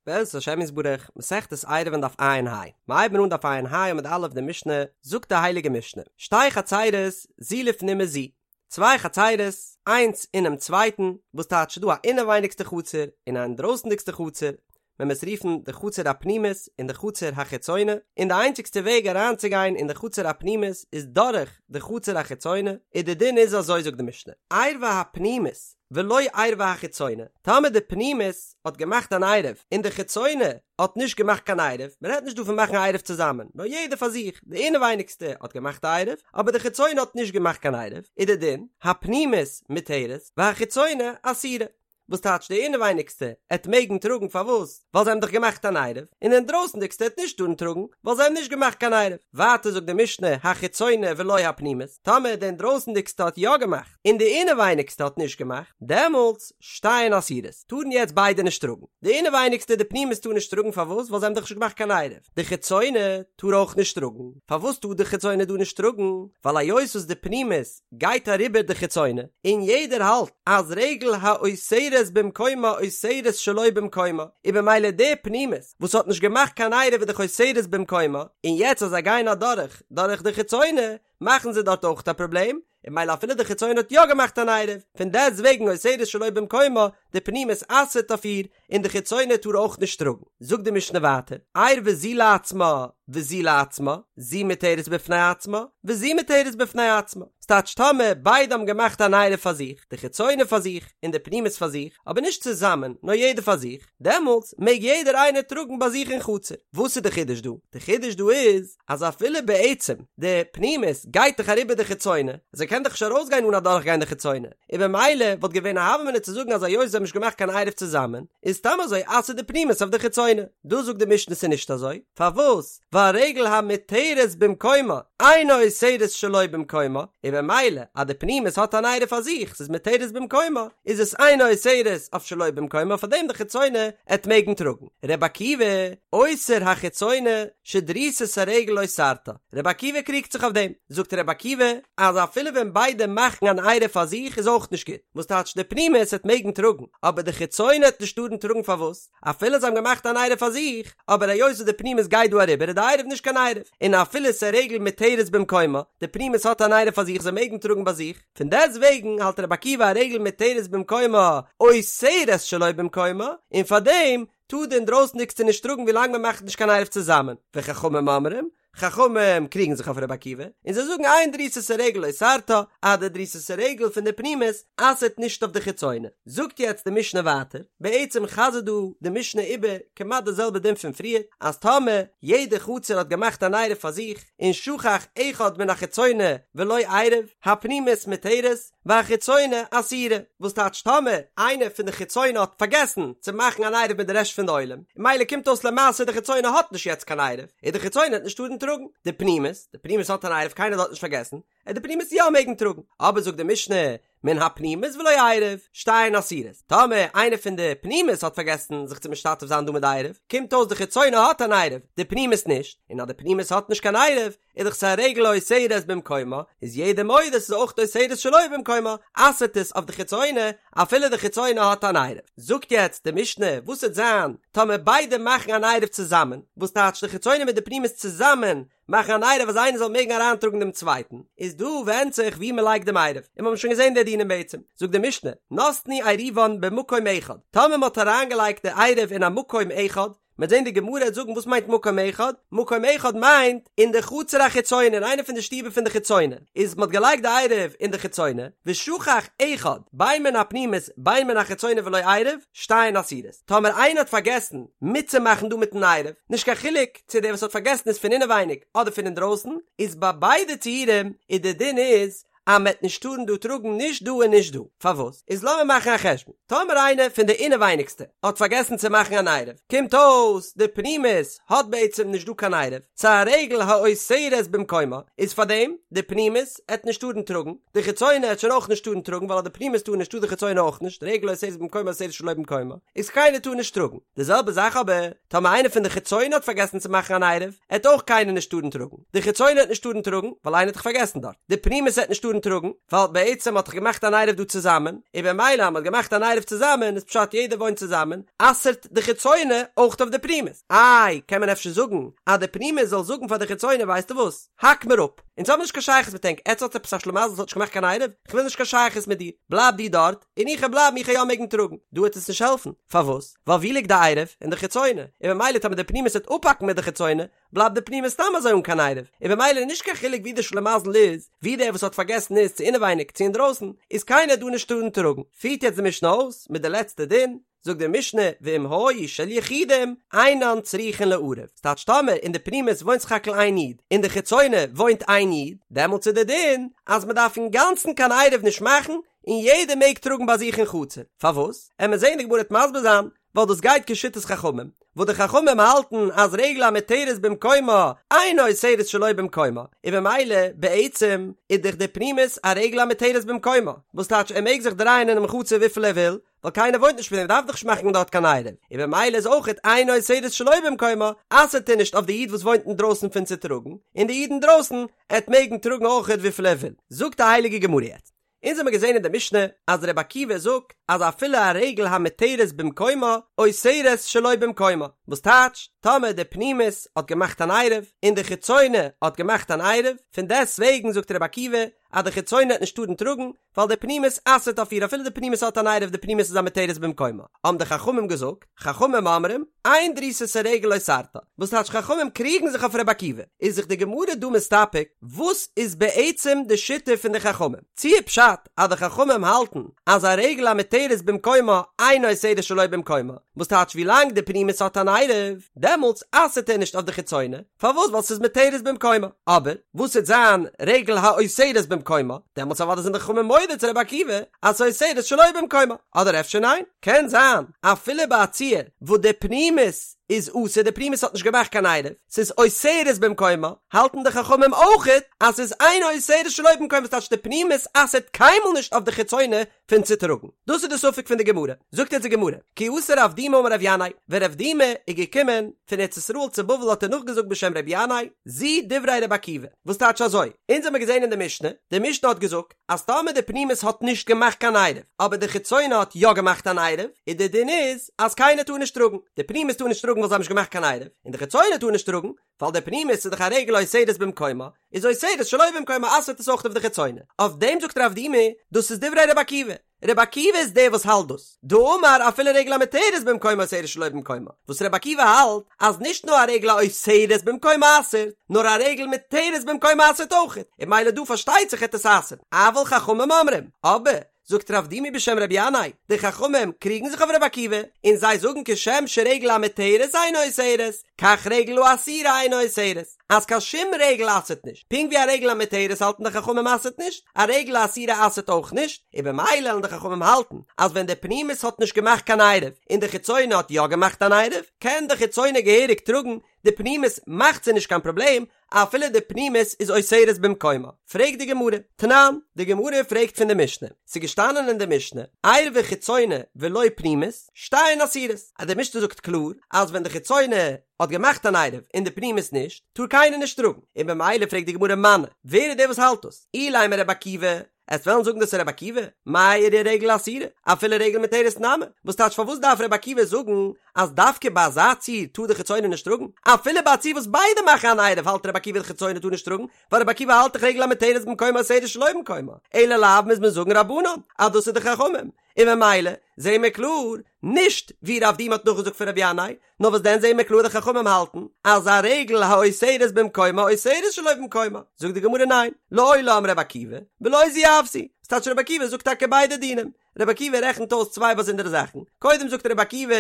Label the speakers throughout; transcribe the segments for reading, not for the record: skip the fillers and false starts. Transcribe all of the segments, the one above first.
Speaker 1: בעזרת השם יתברך, מסכת עירובין דף ע"ה, מיר הייבן אן דף ע"ה עמוד א' די משנה, זאגט די הייליגע משנה, שתי חצירות זו לפנים מזו, צוויי חצירות, איינס אינעם צווייטן, וואס טייטש ס'דא א אינעווייניגסטע חצר און א אינדרויסנדיגסטע חצר, מען מוז רופן די חצר הפנימית און די חצר החיצונה, און די איינציגסטע וועג אריינצוגיין אין די חצר הפנימית איז דורך די חצר החיצונה, און די דין איז אזוי זאגט די משנה, עירבה הפנימית ולא עירבה החיצונה, טאמער די פנימית האט געמאכט אן עירוב און די חיצונה האט נישט געמאכט קיין עירוב, מען רעדט נישט דא פון מאכן א עירוב צוזאמען, נאר יעדער פאר זיך, די אינעווייניגסטע האט געמאכט א עירוב, אבער די חיצונה האט נישט געמאכט קיין עירוב, איז די דין, הפנימית מותרת, והחיצונה אסורה. וואס טייטש די אינעווייניגסטע עט מעגן טראגן פארוואס? ווייל זיי האבן דאך געמאכט אן עירוב, און די אינדרויסנדיגסטע עט נישט טארן טראגן ווייל זיי האבן נישט געמאכט קיין עירוב. ווייטער זאגט די משנה החיצונה ולא הפנימית, טאמער די אינדרויסנדיגסטע האט יא געמאכט און די אינעווייניגסטע האט נישט געמאכט, דעמאלטס שתיהן אסורות, טארן יעצט ביידע נישט טראגן. די אינעווייניגסטע די פנימית טאר נישט טראגן פארוואס? ווייל זיי האבן דאך נישט געמאכט קיין עירוב. די חיצונה טאר אויך נישט טראגן. פארוואס טאר די חיצונה דא נישט טראגן? ווייל היות וואס די פנימית גייט אריבער די חיצונה, און יעדער האלט אז רגל האוסרת במקומה אוסרת שלא במקומה, און במילא די פנימית וואס האט נישט געמאכט קיין עירוב איז דאך אוסרת במקומה, און יעצט אז זיי גייען אדורך דורך די חיצונה מאכן זיי דארט אויך א פראבלעם, און במילא אפילו די חיצונה האט יא געמאכט אן עירוב, פון דעסט וועגן אוסרת שלא במקומה, די פנימית אסר'ט אויף איר, און די חיצונה טאר אויך נישט טראגן. זאגט די משנה ווייטער, עירבה זו לעצמה וזו לעצמה, זו מותרת בפני עצמה, וזו מותרת בפני עצמה. ס'טייטש טאמער ביידע האבן געמאכט אן עירוב פאר זיך, די חיצונה פאר זיך און די פנימית פאר זיך, אבער נישט צוזאמען, נאר יעדער פאר זיך, דעמאלטס מעג יעדער איינער טראגן ביי זיך אין חצר. וואס איז די חידוש דא? די חידוש דא איז, אז אפילו בעצם די פנימית גייט דאך אריבער די חיצונה, זי קען דאך נישט ארויסגיין אן אדורכגיין די חיצונה, און במילא וואלט געווען א הוה אמינא צו זאגן אז היות זיי האבן נישט געמאכט קיין עירוב צוזאמען, איז סתם אזוי אסר'ט די פנימית אויף די חיצונה. דא זאגט די משנה ס'איז נישט אזוי, פארוואס? ווייל רגל המותרת במקומה אינה אוסרת שלא במקומה, און במילא אז די פנימית האט אן עירוב פאר זיך, ס'איז מותרת במקומה, איז עס אינה אוסרת אויף שלא במקומה פארדעם די חיצונה עט מעגן טראגן. ר' עקיבא אוסר החיצונה שדריסת הרגל אוסרתה, ר' עקיבא קריגט זיך אויף דעם, זאגט ר' עקיבא אז אפילו ווען ביידע מאכן אן עירוב פאר זיך איז אויך נישט גוט, וואס טייטש די פנימית עט מעגן טראגן, אבער די חיצונה עט נישט טארן טראגן פארוואס? אפילו זיי האבן געמאכט אן עירוב פאר זיך, אבער היות וואס די פנימית גייט דא אריבער איז די עירוב נישט קיין עירוב, און אפילו ס'איז רגל מותרת במקומה, די פנימית האט אן עירוב פאר זיך זיי מעגן טראגן ביי זיך, פון דעסט וועגן האלט רבי עקיבא א רגל מותרת במקומה אוסרת שלא במקומה, און פאר דעם טאר די אינדרויסנדיגסטע נישט טראגן ווילאנג מען מאכט נישט קיין עירוב צוזאמען, וחכמים אומרים, חכמים קריגן זיך אויף רבי עקיבא, און זיי זאגן אין דריסת הרגל אוסרתה, אז די דריסת הרגל פון די פנימית אסר'ט נישט אויף די חיצונה. זאגט יעצט די משנה ווייטער, בעצם חזר'ט דא די משנה איבער כמעט די זעלבע דין פון פריער, אז טאמער יעדע חצר האט געמאכט אן עירוב פאר זיך, און שכח אחד מן החיצונה ולא עירב, הפנימית מותרת, והחיצונה אסורה, וואס טייטש טאמער איינער פון די חיצונה האט פארגעסן צו מאכן אן עירוב מיט די רעשט פון די עולם, און ממילא קומט אויס למעשה די חיצונה האט נישט יעצט קיין עירוב, און די חיצונה עט נישט טארן טראגן, די פנימית, די פנימית האט אן עירוב קיינער האט נישט פארגעסן, עט די פנימית יא מעגן טראגן, אבער זאגט די משנה, מן הפנימית ולא עירב, שתיהן אסורות, טאמער איינער פון די פנימית האט פארגעסן זיך צו משתתף זיין דא מיט די עירוב, קומט אויס די חיצונה האט אן עירוב, די פנימית נישט, און אז די פנימית האט נישט קיין עירוב, איז דאך ס'א רגל האוסרת במקומה, איז יעדער מודה ס'איז אויך אוסרת שלא במקומה, אסר'ט עס אויף די חיצונה, אפילו די חיצונה האט אן עירוב. זאגט יעצט די משנה, וואס וועט זיין טאמער ביידע מאכן אן עירוב צוזאמען, וואס טייטש די חיצונה מיט די פנימית צוזאמען מאכן אן עירוב אז איינער זאל מעגן אריינטראגן דעם צווייטן, איז דא ווענדט זיך וואו מ'לייגט דעם עירוב, און מ'האבן שוין געזען די דינים בעצם, זאגט די משנה, נתנו עירובן במקום אחד, טאמער מ'האט אריינגעלייגט די עירוב אין א מקום אחד, מ'וועט זען די גמרא וועט זאגן וואס מיינט מקום אחד, מקום אחד מיינט אין די חצר החיצונה אין איינע פון די שטיבער פון די חיצונה, איז מ'האט געלייגט די עירוב אין די חיצונה, ושכח אחד בין מן הפנימית בין מן החיצונה ולא עירב, שתיהן אסורות. טאמער איינער האט פארגעסן מיטצומאכן דא מיטן עירוב, נישט קיין חילוק צו דער וואס האט פארגעסן איז פון אינעווייניג אדער פון אינדרויסן, איז ביי ביידע ציורים איז די דין איז אז מ'עט נישט טארן דא טראגן נישט דא און נישט דא. פארוואס? איז לאמיר מאכן א חשבון. טאמער איינער פון די אינעווייניגסטע האט פארגעסן צו מאכן אן עירוב, קומט אויס די פנימית האט בעצם נישט דא קיין עירוב, ס'איז א רגל האוסרת במקומה, איז פארדעם די פנימית עט נישט טארן טראגן, די חיצונה עט שוין אויך נישט טארן טראגן ווייל אז די פנימית טאר נישט טאר די חיצונה אויך נישט, רגל האוסרת במקומה אוסרת שלא במקומה, איז קיינער טאר נישט טראגן. די זעלבע זאך אבער טאמער איינער פון די חיצונה האט פארגעסן צו מאכן אן עירוב, עט אויך קיינער נישט טארן טראגן. די חיצונה עט נישט טארן טראגן, ווייל איינער האט דאך פארגעסן דארט. די פנימית עט נישט טארן. טארן טראגן, ווייל בעצם מ'האט דאך געמאכט אן עירוב דא צוזאמען, און במילא אז מ'האט געמאכט אן עירוב צוזאמען איז פשט יעדער וואוינט צוזאמען, אסר'ט די חיצונה אויך אויף די פנימית. איי, קען מען אפשר זאגן אז די פנימית זאל זאגן פאר די חיצונה ווייסטו וואס, האק מיר אפ, אונז האבן נישט קיין שייכות מיט ענק, עטס האטס עפעס א שלימזל וואס האט נישט געמאכט קיין עירוב, כ'וויל נישט קיין שייכות מיט דיר, בלייב דו דארט, און איך וועל בלייבן איך וועל יא מעגן טראגן. דא וועט עס נישט העלפן, פארוואס? ווייל ווי ליגט די עירוב? אין די חיצונה, און במילא טאמער די פנימית וועט אפהאקן מיט די חיצונה, בלייבט די פנימית סתם אזוי אן קיין עירוב, און במילא איז נישט קיין חילוק ווי די שלימזל איז, ווי דער וואס האט פארגעסן איז, צו אינעווייניג צו אינדרויסן, איז קיינער דא נישט טארן טראגן. פירט יעצט די משנה אויס מיט די לעצטע דין, זאגט די משנה, ואם היו של יחידים, אינן צריכין לערב, ס'טייטש טאמער אין די פנימית וואוינט סך הכל איין איד, אין די חיצונה וואוינט איין איד, דעמאלטס איז די דין אז מ'דארף אינגאנצן קיין עירוב נישט מאכן, און יעדער מעג טראגן ביי זיך אין חצר. פארוואס? עמיר זעהן די גמרא וועט מסביר זיין, ווייל דאס גייט כשיטת חכמים, וואס די חכמים האלטן אז רגל המותרת במקומה אינה אוסרת שלא במקומה, און במילא בעצם איז דאך די פנימית א רגל המותרת במקומה, וואס טייטש ער מעג זיך דרייען אינעם חצר וויפיל ער וויל, ווייל קיינער וואוינט נישט מיט אים דארף דאך נישט מאכן דארט קיין עירוב, און במילא איז אויכעט אינה אוסרת שלא במקומה, אסר'ט ער נישט אויף די איד וואס וואוינט אינדרויסן פון צו טראגן, און די איד אינדרויסן עט מעגן טראגן אויכעט וויפיל ער וויל. זאגט די הייליגע גמרא יעצט, אונז האמיר געזען אין די משנה אז ר' עקיבא זאגט אז אפילו א רגל המותרת במקומה אוסרת שלא במקומה, וואס טייטש, טאמער די פנימית האט געמאכט אן עירוב און די חיצונה האט געמאכט אן עירוב, פון דעסט וועגן זאגט ר' עקיבא אז די חיצונה עט נישט טארן טראגן, ווייל די פנימית אסר'ט אויף איר אפילו די פנימית האט אן עירוב די פנימית איז א מותרת במקומה, האבן די חכמים געזאגט, חכמים אומרים, אין דריסת הרגל אוסרתה, וואס טייטש חכמים קריגן זיך אויף ר' עקיבא, איז זיך די גמרא דא מסתפק וואס איז בעצם די שיטה פון די חכמים, צי איז פשט אז די חכמים האלטן אז א רגל המותרת במקומה אינה אוסרת שלא במקומה, וואס טייטש ווילאנג די פנימית האט אן עירוב דעמאלטס אסר'ט ער נישט אויף די חיצונה, פארוואס ווייל ס'איז מותרת במקומה, אבער וואס וועט זיין רגל האוסרת במקומה, דעמאלטס אוודאי זענען די חכמים מודה צו רבי עקיבא אז ס'אוסרת שלא במקומה, אדער אפשר ניין? קען זיין אפילו ביי א ציור וואס די פנימית איז אסור די פנימית האט נישט געמאכט קיין עירוב, ס'איז אוסרת במקומה, האלטן די חכמים אויכעט אז ס'איז אינה אוסרת שלא במקומה ס'טייטש די פנימית אסר'ט קיינמאל נישט אויף די חיצונה פון צו טראגן. דאס איז די ספק פון די גמרא. זאגט יעצט די גמרא, כי אתא רב דימי אמר רבי ינאי, ווען רב דימי איז געקומען פון ארץ ישראל צו בבל האט ער נאכגעזאגט בשם רבי ינאי, זו דברי רבי עקיבא, וואס טייטש אזוי, אונז האמיר געזען אין די משנה, די משנה האט געזאגט, אז טאמער די פנימית האט נישט געמאכט קיין עירוב, אבער די חיצונה האט יא געמאכט אן עירוב, איז די דין איז אז קיינער טאר נישט טראגן, די פנימית טאר נישט טראגן ווייל זיי האבן נישט געמאכט קיין עירוב, און די חיצונה טאר נישט טראגן, ווייל די פנימית איז דאך א רגל האוסרת במקומה, איז אוסרת שלא במקומה אסר'ט עס אויך אויף די חיצונה. אויף דעם זאגט רב דימי, דאס איז דברי רבי עקיבא, רבי עקיבא איז דער וואס האלט דאס, דאמר אפילו רגל המותרת במקומה אוסרת שלא במקומה, וואס רבי עקיבא האלט אז נישט נאר א רגל האוסרת במקומה אסר'ט, נאר א רגל מותרת במקומה אסר'ט אויכעט, און ממילא דא פארשטייט זיך העט עס אסר'ן, אבל חכמים אומרים, אבער, זאגט רב דימי בשם רבי ינאי, די חכמים קריגן זיך אויף רבי עקיבא, און זיי זאגן כשם שרגל המותרת אינה אוסרת, כך רגל האסורה אינה אוסרת, אז קיין שום רגל אסר'ט נישט, פונקט ווי א רגל המותרת האלטן די חכמים אסר'ט נישט, א רגל האסורה אסר'ט אויך נישט, און במילא וועלן די חכמים האלטן אז ווען די פנימית האט נישט געמאכט קיין עירוב און די חיצונה האט יא געמאכט אן עירוב, קען די חיצונה געהעריג טראגן, די פנימית מאכט זיי נישט קיין פראבלעם, אפילו די פנימית איז אוסרת במקומה. פרעגט די גמרא, תנן, די גמרא פרעגט פון די משנה, ס'איז געשטאנען אין די משנה, עירבה חיצונה ולא פנימית, שתיהן אסורות, אז די משנה זאגט קלאר אז ווען די חיצונה האט געמאכט אן עירוב און די פנימית נישט, טאר קיינער נישט טראגן, און במילא פרעגט די גמרא מני, ווער איז דער וואס האלט דאס? אילימא רבי עקיבא, עסט וועלן זאגן דאס איז רבי עקיבא? מאי איריא רגל אסורה, אפילו רגל מותרת נמי, וואס טייטש פארוואס דארף רבי עקיבא זאגן אז דווקא ביי אזא ציור טאר די חיצונה נישט טראגן? אפילו ביי א ציור וואס ביידע מאכן אן עירוב האלט רבי עקיבא די חיצונה טאר נישט טראגן, ווייל רבי עקיבא האלט דאך רגל המותרת במקומה אוסרת שלא במקומה, אלא לאו מוז מען זאגן רבנן אז דאס איז די חכמים, און ממילא זעהן מיר קלאר נישט ווי רב דימי האט נאכגעזאגט פון רבי ינאי, נאר וואס דען זעהן מיר קלאר די חכמים האלטן אז א רגל האוסרת במקומה אוסרת שלא במקומה, זאגט די גמרא ניין, לעולם רבי עקיבא, ולא זו אף זו, ס'טייטש רבי עקיבא זאגט טאקע ביידע דינים, רבי עקיבא רעכנט אויס צוויי באזונדערע זאכן, קודם זאגט רבי עקיבא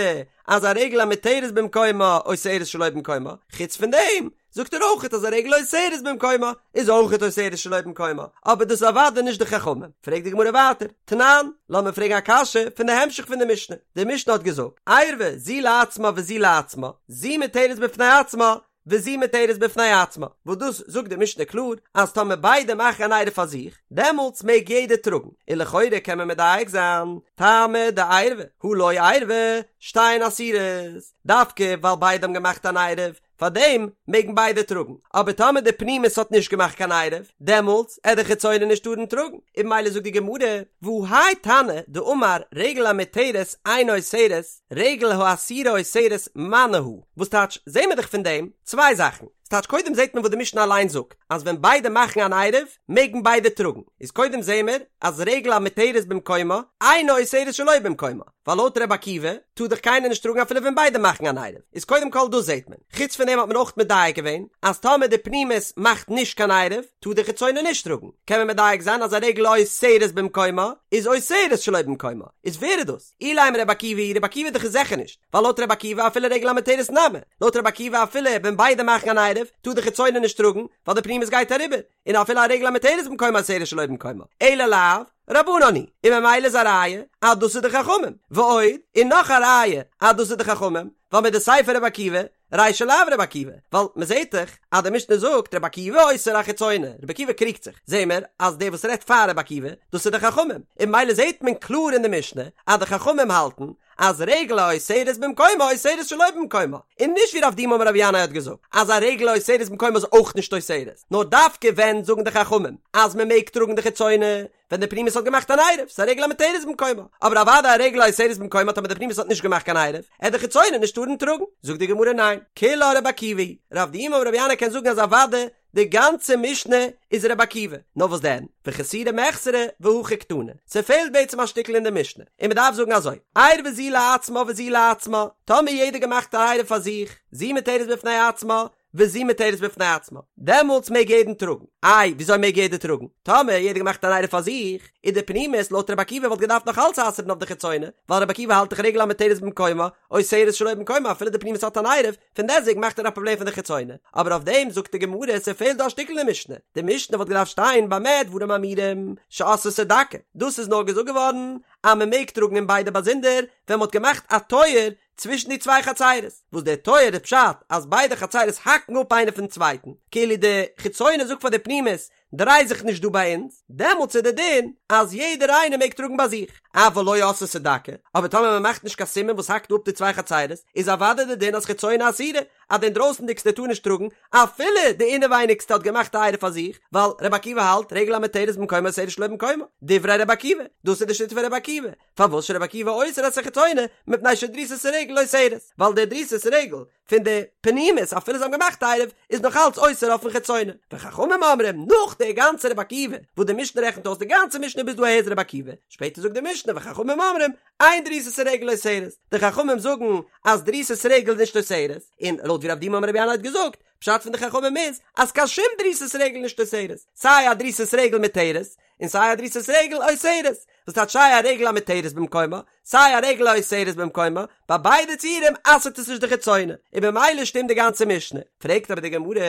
Speaker 1: אז א רגל המותרת במקומה אוסרת שלא במקומה, חוץ פון דעם זאגט ער אויכעט אז א רגל האוסרת במקומה איז אויכעט אוסרת שלא במקומה, אבער דאס איז אוודאי נישט די חכמים. פרעגט די גמרא ווייטער, תנן, לאמיר פרעגן א קשיא פון די המשך פון די משנה, די משנה האט געזאגט, עירבה זו לעצמה וזו לעצמה, זו מותרת בפני עצמה וזו מותרת בפני עצמה, וואס דאס זאגט די משנה קלאר אז טאמער ביידע מאכן אן עירוב פאר זיך, דעמאלטס מעג יעדער טראגן, און לכאורה קען מען מדייק זיין, טעמא דעירבה, הא לא עירבה. שתיהן אסורות, דווקא ווייל ביידע האבן געמאכט אן עירוב, פארדעם מעגן ביידע טראגן, אבער טאמער די פנימית האט נישט געמאכט קיין עירוב, דעמאלטס עט די חיצונה נישט טארן טראגן, און ממילא זאגט די גמרא, והא האי תנא דאמר רגל המותרת אינה אוסרת, רגל האסורה אוסרת מני הא, וואס טייטש, זעהן מיר דאך פון דעם צוויי זאכן, ס'טייטש קודם זעהט מען וואס די משנה אליין זאגט, אז ווען ביידע מאכן אן עירוב, מעגן ביידע טראגן, איז קודם זעהן מיר אז רגל המותרת במקומה, אינה אוסרת שלא במקומה, ווייל לויט ר' עקיבא טאר דאך קיינער נישט טראגן אפילו ווען ביידע מאכן אן עירוב, איז קודם כל דאס זעהט מען, חוץ פון דעם האט מען אויך מדייק געווען אז טאמער די פנימית מאכט נישט קיין עירוב טאר די חיצונה נישט טראגן, קען מען מדייק זיין אז א רגל האוסרת במקומה איז אוסרת שלא במקומה, איז ווער איז דאס? אילימא ר' עקיבא היא, ר' עקיבא איז דאך זיכער נישט, ווייל לויט ר' עקיבא אפילו רגל המותרת נמי, לויט ר' עקיבא אפילו ווען ביידע מאכן אן עירוב טאר די חיצונה נישט טראגן ווייל די פנימית גייט אריבער, און אפילו א רגל המותרת במקומה אוסרת שלא במקומה, אלא לאו רבנן היא, און ממילא איז א ראיה אז דאס איז די חכמים, ועוד, און נאך א ראיה אז דאס איז די חכמים, ווייל מדסיפא רבי עקיבא, רישא לאו רבי עקיבא, ווייל מען זעט דאך אז די משנה זאגט רבי עקיבא אוסר החיצונה, רבי עקיבא קריגט זיך, זעהן מיר אז דער וואס רעדט פאר רבי עקיבא, דאס איז די חכמים, און ממילא זעט מען קלאר אין די משנה אז די חכמים האלטן אז רגל האוסרת במקומה אוסרת שלא במקומה, און נישט ווי רב דימי אמר רבי ינאי האט געזאגט אז א רגל האוסרת במקומה איז אויך נישט אוסרת, נאר דווקא ווען זאגן די חכמים אז מען מעג טראגן די חיצונה ווען די פנימית האט געמאכט אן עירוב, ס'איז א רגל המותרת במקומה, אבער אוודאי א רגל האוסרת במקומה טאמער די פנימית האט נישט געמאכט קיין עירוב, עט די חיצונה נישט טארן טראגן. זאגט די גמרא ניין, כולה רבי עקיבא היא, רב דימי אמר רבי ינאי קען זאגן אז אוודאי די גאנצע משנה איז רבי עקיבא, נאר וואס דען, וחסורי מחסרא והכי קתני, ס'פעלט בעצם א שטיקל אין די משנה, און מ'דארף זאגן אזוי, עירבה זו לעצמה וזו לעצמה, טאמער יעדער געמאכט א עירוב פאר זיך, זו מותרת בפני עצמה, וזו מותרת בפני עצמה, דעמאלטס מעג יעדן טראגן. איי, וויאזוי מעג יעדער טראגן? טאמער יעדער געמאכט אן עירוב פאר זיך, איז די פנימית לויט רבי עקיבא וואלט געדארפט נאך אלץ אסר'ן אויף די חיצונה, ווייל רבי עקיבא האלט דאך רגל המותרת במקומה, אוסרת שלא במקומה אפילו די פנימית האט אן עירוב, פון דעסטוועגן מאכט ער א פראבלעם פון די חיצונה. אבער אויף דעם זאגט די גמרא ס'פעלט דא א שטיקל אין משנה, די משנה וואלט געדארפט שטיין במה דברים אמורים שעשתה דקה, דאס איז נאר געזאגט געווארן אז מ'מעג טראגן אין ביידע באזונדער ווען מ'האט געמאכט א טויער צווישן די צוויי חצירות, וואס דער טויער איז פשט אז ביידע חצירות האקן אפ איינער פון צווייטן, כאילו די חיצונה זאגט פאר די פנימית דריי זיך נישט דא ביי אונז, דעמאלטס איז די דין אז יעדער איינער מעג טראגן ביי זיך, אבל לא עשתה דקה, אבער טאמער מען מאכט נישט קיין סימן וואס האקט אפ די צוויי חצירות, איז אוודאי די דין אז חיצונה אסורה, אז די אינדרויסנדיגסטע טאר נישט טראגן, אפילו די אינעווייניגסטע האט געמאכט א עירוב פאר זיך, ווייל רבי עקיבא האלט רגל המותרת במקומה אוסרת שלא במקומה, דברי רבי עקיבא, דאס איז די שיטה פון רבי עקיבא, פארוואס שרבי עקיבא אוסר את החיצונה מפני שדריסת הרגל אוסרת, ווייל די דריסת רגל פון די פנימית אפילו זיי האבן געמאכט עירוב איז נאך אלץ אוסר אויפן חיצונה, וחכמים אומרים נאך די גאנצע רבי עקיבא וואס די משנה רעכנט אויס די גאנצע משנה ביז דא אהער איז רבי עקיבא, שפעטער זאגט די משנה וחכמים אומרים אין דריסת הרגל אוסרת, די חכמים זאגן אז דריסת רגל איז נישט אוסרת, און לויט ווי רב דימי אמר רבי ינאי האט געזאגט, פשט פון די חכמים איז אז קיין שום דריסת רגל נישט אוסרת, סיי א דריסת רגל מותרת און סיי א דריסת רגל אוסרת, וואס טייטש סיי א רגל המותרת במקומה, סיי א רגל האוסרת במקומה, ביי ביידע ציורים אסר'ט עס נישט די חיצונה, און במילא שטימט די גאנצע משנה. פרעגט אבער די גמרא,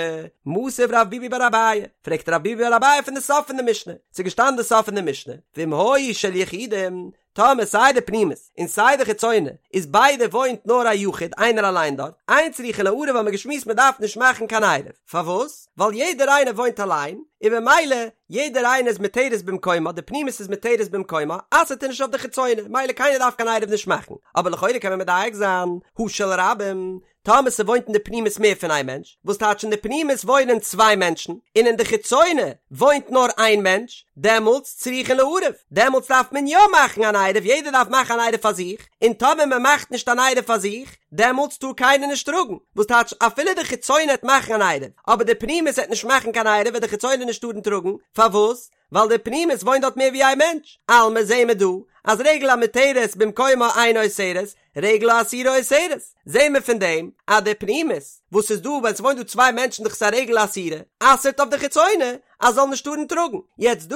Speaker 1: מתיב רב ביבי בר אביי, פרעגט רב ביבי בר אביי פון די סוף פון די משנה, ס'איז געשטאנען די סוף פון די משנה, ואם היו של יחידים, טאמער סיי די פנימית און סיי די חיצונה איז ביידע וואוינט נאר א יחיד איינער אליין דארט, אין צריכין לערב האבן מיר געשמועסט מען דארף נישט מאכן קיין עירוב, פארוואס? ווייל יעדער איינער וואוינט אליין, און במילא יעדער איינער איז מותרת במקומה, די פנימית איז מותרת במקומה, אסר'ט ער נישט אויף די חיצונה, מילא קיינער דארף קיין עירוב נישט מאכן, אבער לכאורה קען מען מדייק זיין, הא של רבים, טאמער ס'וואוינט אין די פנימית מער פון איין מענטש, וואס טייטש אין די פנימית וואוינען צוויי מענטשן, און אין די חיצונה וואוינט נאר איין מענטש, דעמאלטס צריכין לערב, דעמאלטס דארף מען יא מאכן אן עירוב, יעדער דארף מאכן אן עירוב פאר זיך, און טאמער מען מאכט נישט אן עירוב פאר זיך, דעמאלטס טאר קיינער נישט טראגן, וואס טייטש אפילו די חיצונה העט מאכן אן עירוב, אבער די פנימית העט נישט מאכן קיין עירוב וועט די חיצונה נישט טארן טראגן, פארוואס? ווייל די פנימית וואוינט דארט מער ווי איין מענטש, אלמא זעהן מיר דא אז רגל המותרת במקומה אינה אוסרת, רגל האסורה אוסרת, זעהן מיר פון דעם אז די פנימית וואס איז דא ווען ס'וואוינט דא צוויי מענטשן דאך ס'איז א רגל אסורה, אסר'ט אויף די חיצונה אז זאל נישט טארן טראגן, יעצט דא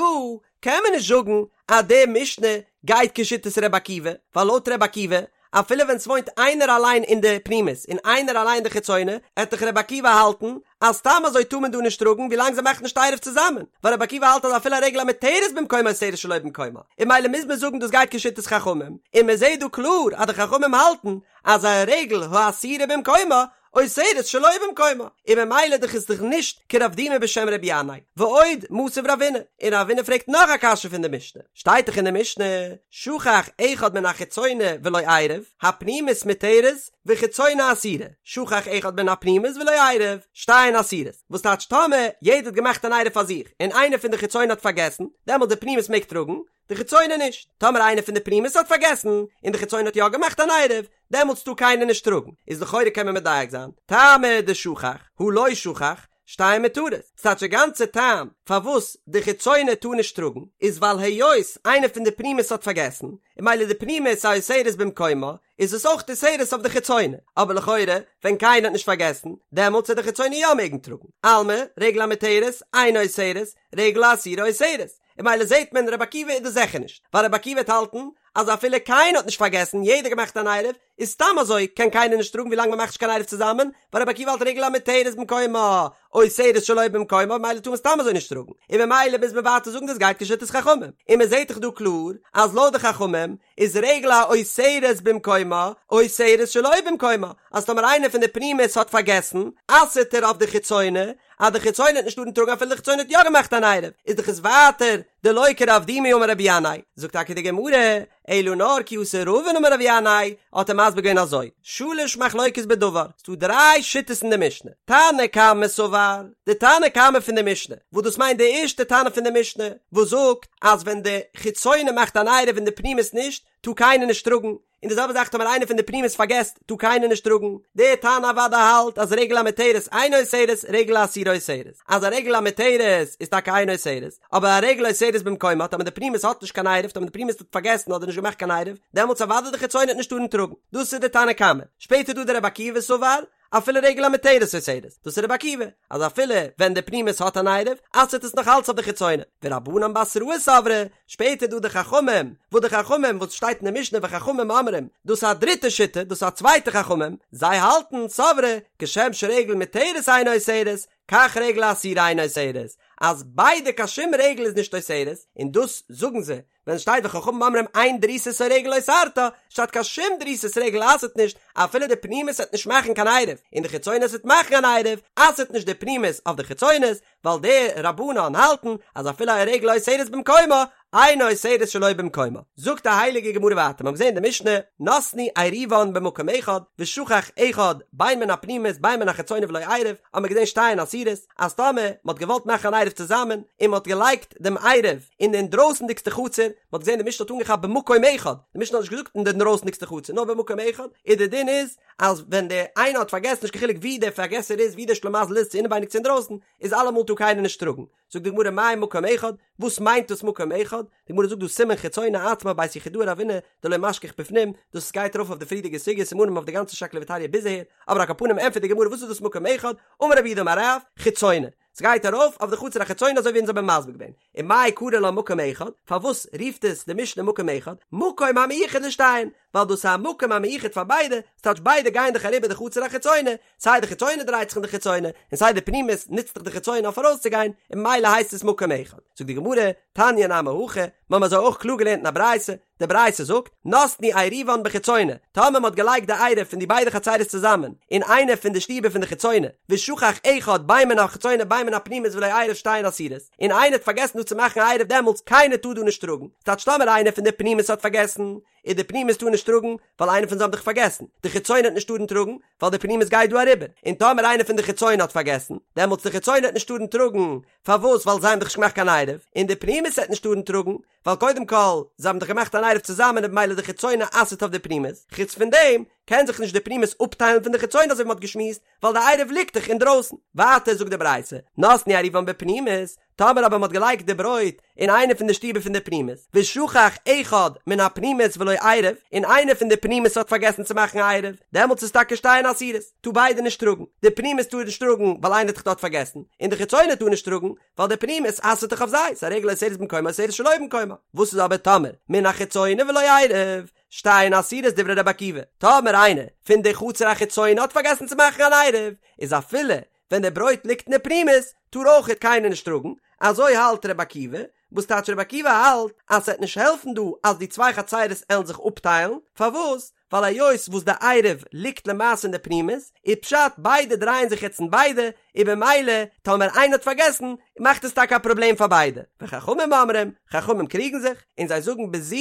Speaker 1: קען מען נישט זאגן אז די משנה גייט כשיטת ר' עקיבא, ווייל לויט ר' עקיבא אפילו ווען ס'וואוינט איינער אליין אין די פנימית און איינער אליין אין די חיצונה, עט דאך ר' עקיבא האלטן אז סתם אזוי טאר מען דא נישט טראגן ווילאנג זיי מאכן נישט עירוב צוזאמען, ווייל ר' עקיבא האלט אז אפילו א רגל המותרת במקומה אוסרת שלא במקומה, און מילא מוז מען זאגן דאס גייט כשיטת חכמים, און מען זעט דא קלאר אז די חכמים האלטן אז א רגל האסורה במקומה. אוסרת שלא במקומה, און ממילא דאך איז דאך נישט כרב דימי בשם רבי ינאי, ועוד מתיב רבינא, און רבינא פרעגט נאך א קשיא פון די משנה, שטייט דאך אין די משנה, שכח אחד מן החיצונה ולא עירב, הפנימית מותרת וחיצונה אסורה, שכח אחד מן הפנימית ולא עירב, שתיהן אסורות, וואס טייטש טאמער יעדער האט געמאכט אן עירוב פאר זיך, און איינער פון די חיצונה האט פארגעסן, דעמאלט די פנימית מעג טראגן, די חיצונה נישט. טאמער איינער פון די פנימית האט פארגעסן, און די חיצונה האט יא געמאכט אן עירוב, דעמאלטס טאר קיינער נישט טראגן. איז לכאורה קען מען מדייק זיין, טעמא דשכח, הא לא שכח, שתיהן מותרות. ס'טייטש די גאנצע טעם פארוואס די חיצונה טאר נישט טראגן, איז ווייל היות איינער פון די פנימית האט פארגעסן, און ממילא די פנימית אוסרת במקומה, איז עס אויך אוסרת אויף די חיצונה. אבער לכאורה, ווען קיינער האט נישט פארגעסן, דעמאלטס וועט די חיצונה יא מעגן טראגן. אלמא, רגל המותרת, אינה אוסרת, רגל האסורה אוסרת. און ממילא זעהט מען רבי עקיבא איז דאס זיכער נישט, ווייל רבי עקיבא וועט האלטן אז אפילו קיינער האט נישט פארגעסן יעדער געמאכט אן עירוב, איז סתם אזוי קען קיינער נישט טראגן ווילאנג מ'מאכט נישט קיין עירוב צוזאמען, ווייל רבי עקיבא האלט רגל המותרת במקומה, אוסרת שלא במקומה ממילא טאר מען סתם אזוי נישט טראגן, און ממילא מוז מען ווייטער זאגן דאס גייט כשיטת חכמים, און מ'זעהט דאך דא קלאר אז לויט די חכמים איז רגל האוסרת במקומה אוסרת שלא במקומה, אז טאמער איינער פון די פנימית האט פארגעסן, אסר'ט ער אויף די חיצונה, אז די חיצונה וועט נישט טארן טראגן אפילו די חיצונה האט יא געמאכט אן עירוב, איז דאך עס ווייטער דלא כרב דימי אמר רבי ינאי, זאגט טאקע די גמרא, אלא נאר כי אתא רבין אמר רבי ינאי, האט ער מסביר געווען אזוי, שלש מחלוקות בדבר, ס'דא דריי שיטות אין די משנה, תנא קמא סבר, די תנא קמא פון די משנה, וואס דאס מיינט די ערשטע תנא פון די משנה, וואס זאגט אז ווען די חיצונה מאכט אן עירוב און די פנימית נישט, טאר קיינער נישט טראגן, און די זעלבע זאך טאמער איינער פון די פנימית פארגעסט טאר קיינער נישט טראגן, דער תנא אוודאי האלט אז רגל המותרת אינה אוסרת רגל האסורה אוסרת, אז א רגל המותרת איז טאקע אינה אוסרת, אבער א רגל אוסרת במקומה טאמער די פנימית האט נישט קיין עירוב טאמער די פנימית האט פארגעסן אדער נישט געמאכט קיין עירוב דעמאלטס אוודאי די חיצונה וועט נישט טארן טראגן, דאס איז די תנא קמא, שפעטער דא דער רבי עקיבא סבר אפילו רגל המותרת אוסרת, דאס איז רבי עקיבא, אז אפילו ווען די פנימית האט אן עירוב, אסר'ט עס נאך אלץ אויף די חיצונה, ורבנן בתראי סברי, שפעטער דא די חכמים, וואס די חכמים וואס שטייט אין די משנה וחכמים אומרים, דאס איז א דריטע שיטה, דאס איז א צווייטע חכמים, זיי האלטן, סברי, כשם שרגל מותרת אינה אוסרת, כך רגל האסורה אינה אוסרת, אז ביידע קיין שום רגל איז נישט אוסרת, און דאס זאגן זיי, ווען שטייט וחכמים אומרים אין דריסת הרגל אוסרתה, שטייט קיין שום דריסת רגל אסר'ט נישט, אפילו די פנימית וועט נישט מאכן קיין עירוב, און די חיצונית וועט מאכן אן עירוב, אסר'ט נישט די פנימית אויף די חיצונית, ווייל די רבנן האלטן אז אפילו א רגל אוסרת במקומה, אינה אוסרת שלא במקומה. זאגט די הייליגע גמרא ווייטער, מיר האבן געזען אין די משנה, נתנו עירובן במקום אחד, ושכח אחד בין מן הפנימית בין מן החיצונה ולא עירב, האבן מיר געזען שתיהן אסורות, אז טאמער מען האט געוואלט מאכן אן עירוב צוזאמען, און מען האט געלייגט דעם עירוב אין די אינדרויסנדיגסטע חצר, מען האט געזען די משנה האט אנגעכאפט במקום אחד, די משנה האט נישט געזאגט אין די אינדרויסנדיגסטע חצר, נאר במקום אחד, און די דין איז אז ווען דער איינער האט פארגעסן נישט קיין חילוק ווי דער פארגעסער איז, ווי דער שלימזל איז, צו אינעווייניג צו אינדרויסן, איז אלעמאל טאר קיינער נישט טראגן. זאגט די גמרא מאי מקום אחד, וואס מיינט דאס מקום אחד? די גמרא זאגט דא סימן חיצונה עצמה בית יחידאה רבינא דלא משכח בפנים, דאס גייט ארויף אויף די פריערדיגע סוגיא סימנים אויף די גאנצע שקלא וטריא ביז אהער, אבער על כל פנים ענטפערט די גמרא וואס איז דאס מקום אחד, אמר רב יהודה אמר רב, חיצונה, ס'גייט ארויף אויף די חצר החיצונה אזוי ווי אונז האבן מסביר געווען, ומאי קרי לה מקום אחד, פארוואס רופט עס די משנה מקום אחד, מקום המיוחד לשתיהן, ווייל דאס איז א מקום המיוחד פאר ביידע, ס'טייטש ביידע גייען דאך אריבער די חצר החיצונה, סיי די חיצונה דרייט זיך אין די חיצונה, און סיי די פנימית נוצט דאך די חיצונה אויף ארויסצוגיין, און ממילא הייסט עס מקום אחד. זאגט די גמרא, תניא נמי הכי, מיר האבן אזוי אויך קלאר געלערנט אין א ברייתא, די ברייתא זאגט, נתנו עירובן בחיצונה, טאמער מען האט געלייגט די עירוב פון די ביידע חצרות צוזאמען, אין איינע פון די שטיבער פון די חיצונה, ושכח אחד בין מן החיצונה בין מן הפנימית ולא עירב שתיהן אסורות, און איינער האט פארגעסן דא צו מאכן א עירוב דעמאלטס קיינער טאר דא נישט טראגן, ס'טייטש טאמער איינער פון די פנימית האט פארגעסן, איז די פנימית טאר נישט טראגן, ווייל איינער פון זיי האבן דאך פארגעסן, די חיצונה וועט נישט טארן טראגן, ווייל די פנימית גייט דא אריבער, און טאמער איינער פון די חיצונה האט פארגעסן, דעמאלטס די חיצונה וועט נישט טארן טראגן, פארוואס ווייל זיי האבן דאך נישט געמאכט קיין עירוב, און די פנימית וועט נישט טארן טראגן, ווייל קודם כל, זיי האבן דאך געמאכט אן עירוב צוזאמען און במילא די חיצונה אסר'ט אויף די פנימית, חוץ פון דעם, קען זיך נישט די פנימית אפטיילן פון די חיצונה אזוי ווי מ'האט געשמועסט, ווייל די עירוב ליגט דאך אינדרויסן. ווייטער זאגט די ברייתא, נתנו עירובן בפנימית, טאמער אבער מ'האט געלייגט די ברויט אין איינע פון די שטיבער פון די פנימית, ושכח אחד מן הפנימית ולא עירב, און איינער פון די פנימית האט פארגעסן צו מאכן א עירוב, דעמאלטס איז טאקע שתיהן אסורות, טאר ביידע נישט טראגן, די פנימית טאר נישט טראגן ווייל איינער האט דאך דארט פארגעסן, און די חיצונה טאר נישט טראגן, ווייל די פנימית אסר'ט דאך אויף זיי, ס'איז א רגל אוסרת במקומה אוסרת שלא במקומה, וואס איז אבער טאמער מן החיצונה ולא עירב, שתיהן אסורות דברי רבי עקיבא, טאמער איינער פון די חצר החיצונה האט פארגעסן צו מאכן אן עירוב, איז אפילו ווען די ברויט ליגט אין די פנימית, טאר אויכעט קיינער נישט טראגן, אזוי האלט רבי עקיבא, וואס טייטש רבי עקיבא האלט אז ס'עט נישט העלפן דא אז די צוויי חצרות עלן זיך אפטיילן, פארוואס? ווייל היות וואס די עירוב ליגט למעשה אין די פנימית, איז פשט ביידע דרייען זיך יעצט אין ביידע, און במילא טאמער איינער האט פארגעסן מאכט עס טאקע א פראבלעם פאר ביידע, וחכמים אומרים, חכמים קריגן זיך, און זיי זאגן בזו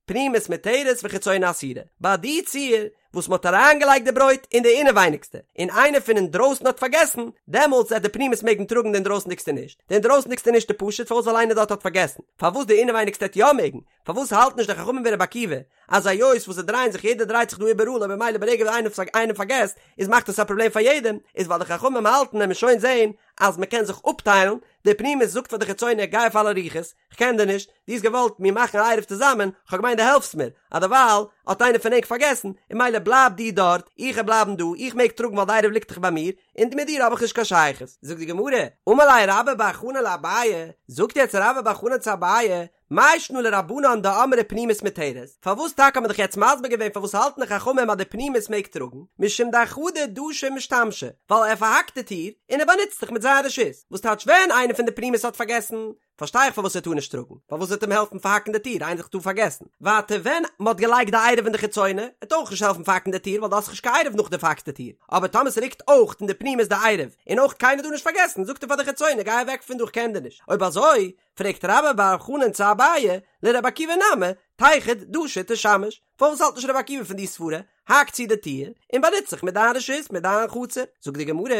Speaker 1: פנימית מותרת וחיצונה אסורה, ביי די ציור וואס מ'האט אריינגעלייגט די ברויט אין די אינעווייניגסטע, און איינער פון אינדרויסן האט פארגעסן, דעמאלטס וועט די פנימית מעגן טראגן די אינדרויסנדיגסטע נישט, די אינדרויסנדיגסטע נישט איז פשוט פארוואס ווייל איינער דארט האט פארגעסן, פארוואס די אינעווייניגסטע וועט יא מעגן, פארוואס האלטן נישט די חכמים ווי רבי עקיבא אז היות וואס זיי דרייען זיך יעדער דרייט זיך דא איבעראל און במילא ברגע וואס איינער איינער פארגעסט איז מאכט עס א פראבלעם פאר יעדעם, איז ווייל די חכמים האלטן עמיר שוין זעהן אז מ'קען זיך אפטיילן, די פנימית זאגט פאר די חיצונה גיי אויף אלע רוחות, כ'קען דיר נישט, דו האסט געוואלט מיר מאכן א עירוב צוזאמען, כ'האב געמיינט דו העלפסט מיר, אז דערווייל האט איינער פון ענק פארגעסן, און מילא בלייב דו דארט, איך וועל בלייבן דא, איך מעג טראגן ווייל די עירוב ליגט דאך ביי מיר, און מיט דיר האב איך נישט קיין שייכות. זאגט די גמרא, אמר ליה רבה בר חנן לאביי, זאגט יעצט רבה בר חנן צו אביי, מאי שנא לרבנן דאמרי פנימית מותרת, פארוואס טאקע האט מען דאך יעצט מסביר געווען פארוואס האלטן די חכמים אז די פנימית מעג טראגן, משום דאחדא דשא ומשתמשא, ווייל ער פארהאקט די טיר, און ער באנוצט זיך מיט זיין רשות, וואס טייטש ווען איינער פון די פנימית האט פארגעסן, פארשטיי איך פארוואס ער טאר נישט טראגן, ווייל וואס וועט אים העלפן פארהאקן די טיר, איינער האט דאך דא פארגעסן. ווייטער ווען מען האט געלייגט די עירוב אין די חיצונה, וועט אויך נישט העלפן פארהאקן די טיר ווייל דו האסט נישט קיין עירוב נאך די פארהאקטע טיר, אבער טאמער ס'ליגט אויך אין די פנימית די עירוב, און אויך קיינער דא נישט פארגעסן, זאגט ער פאר די חיצונה גיי אוועק פון דא איך קען דיר נישט, אויב אזוי פרעגט רבה בר חנן צו אביי, לרבי עקיבא נמי, תיחוד דשא ותשמש, פארוואס האלט נישט רבי עקיבא פון די סברה, האק צו די טיר, און באנוץ זיך מיט דיין רשות, מיט דיין חצר, זאגט די גמרא,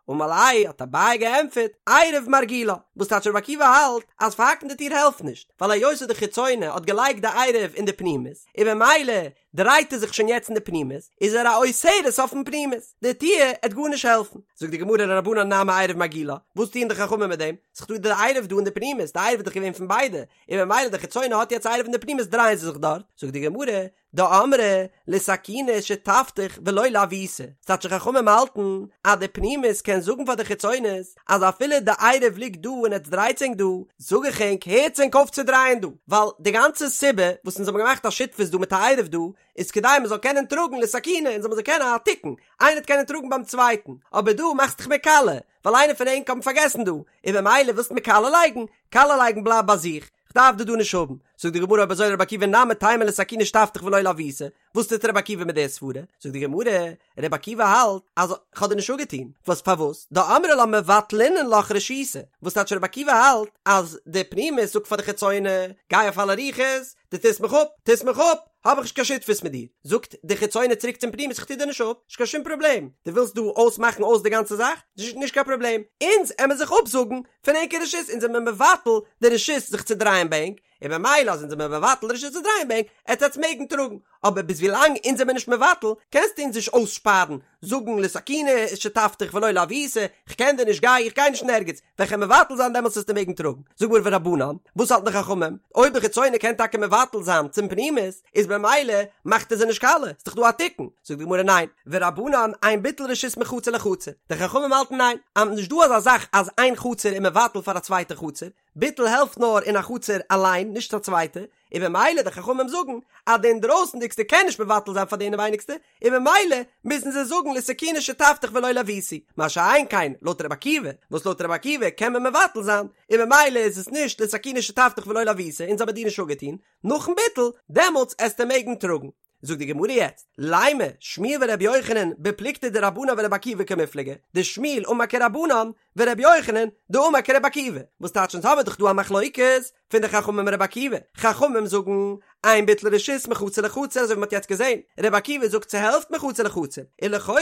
Speaker 1: אמר ליה האט אביי געענטפערט, עירוב מרגילה, וואס טייטש רבי עקיבא האלט אז פארהאקן די טיר העלפט נישט, ווייל היות וואס די חיצונה האט געלייגט די עירוב אין די פנימית, און במילא דרייט ער זיך שוין יעצט אין די פנימית, איז ער א אוסרת אויפן פנימית, די טיר עט גארנישט העלפן. זאגט די גמרא לרבנן נמי עירוב מרגילה, וואס טוען די חכמים מיט דעם? ס'איז דא די עירוב דא אין די פנימית, די עירוב איז דאך געווען פון ביידע, און במילא די חיצונה האט יעצט עירוב אין די פנימית דרייען זיי זיך דארט, זאגט די גמרא, דאמרי לתקוני שותפתיך ולא לעוותי, ס'טייטש די חכמים האלטן אז די פנימית קען זאגן פאר די חיצונית אז אפילו די עירוב ליגט דא און עטס דרייטס ענק דא, זאג איך ענק הערטס ענק אויף צו דרייען דא, ווייל די גאנצע סיבה וואס אונז האבן געמאכט א שותפות דא מיט א עירוב דא איז כדי מען זאל קענען טראגן לתקוני און זאל מען זאל קענען א תיקון, איינער האט קענען טראגן ביים צווייטן, אבער דא מאכסט דיך מיר קאלע, ווייל איינער פון ענק האבן פארגעסן דא, און במילא ווילסט מיר קאלע לייגן, קאלע לייגן בלייב ביי זיך, כ'דארף דיר דא נישט האבן. זאגט די גמרא אויב אזוי רבי עקיבא נמי תימא לתקוני שותפתיך ולא לעוותי, וואס טוט רבי עקיבא מיט די סברה? זאגט די גמרא, רבי עקיבא האלט אז כ'האב דיר נישט אפגעטון, וואס פארוואס? דאמרי לה מבטלינן לך רשותי, וואס טייטש רבי עקיבא האלט אז די פנימית זאגט פאר די חיצונה, גיי אויף אלע רוחות, דו טוסט מיך אפ, טוסט מיך אפ, האב איך נישט קיין שותפות מיט דיר. זאגט די חיצונה צוריק צום פנימית איך טו דיר נישט אפ, נישט קיין שום פראבלעם, דו ווילסט דא אויסמאכן אויס די גאנצע זאך, נישט קיין פראבלעם, אונז עמער זיך אפזאגן פון ענקער רשות, אונז זעמער מבטל די רשות זיך צו דרייען ביי ענק, און במילא אז אונז זעמער מבטל די רשות צו דרייען ביי ענק, עט עטץ מעגן טראגן, אבער ביז ווילאנג אונז זעמער נישט מבטל, קענסטו אונז נישט אויסשפארן, זאגן לתקוני שותפתיך ולא לעוותי, כ'קען דיר נישט גיי, איך גיי נישט אין ערגעץ, ווען כ'על מבטל זיין דעמאלטס וועסטו מעגן טראגן. זאג מיר ורבנן, וואס האלטן די חכמים? אויב די חיצונה קען טאקע מבטל זיין צום פנימית, איז במילא מאכט ער זיי נישט קאלע, ס'דאך דא א תיקון. זאגט די גמרא ניין, ורבנן אין ביטול רשות מחצר לחצר, די חכמים האלטן ניין, אז נישט דא אזא זאך אז איין חצר איז מבטל פאר א צווייטע חצר, ביטול העלפט נאר אין א חצר אליין נישט א צווייטע, און במילא די חכמים זאגן אז די אינדרויסנדיגסטע קען נישט מבטל זיין פאר די אינעווייניגסטע, און במילא מוזן זיי זאגן לתקוני שותפתיך ולא לעוותי, מה שאין כן לויט רבי עקיבא, וואס לויט רבי עקיבא קען מען מבטל זיין, און במילא איז עס נישט לתקוני שותפתיך ולא לעוותי, אונז האבן דיר נישט אפגעטון, נאכן ביטול, דעמאלטס עסטו מעגן טראגן. זאגט די גמרא יעצט, לימא שמואל ורבי יוחנן בפלוגתא דרבנן ורבי עקיבא קמיפלגי, דשמואל אמר כרבנן ורבי יוחנן דאמר כרבי עקיבא, וואס טייטש אונז האבן דאך דא א מחלוקת פון די חכמים און רבי עקיבא, חכמים זאגן אין ביטול רשות מחצר לחצר אזוי ווי מ'האט יעצט געזען, רבי עקיבא זאגט ס'העלפט מחצר לחצר, און לכאורה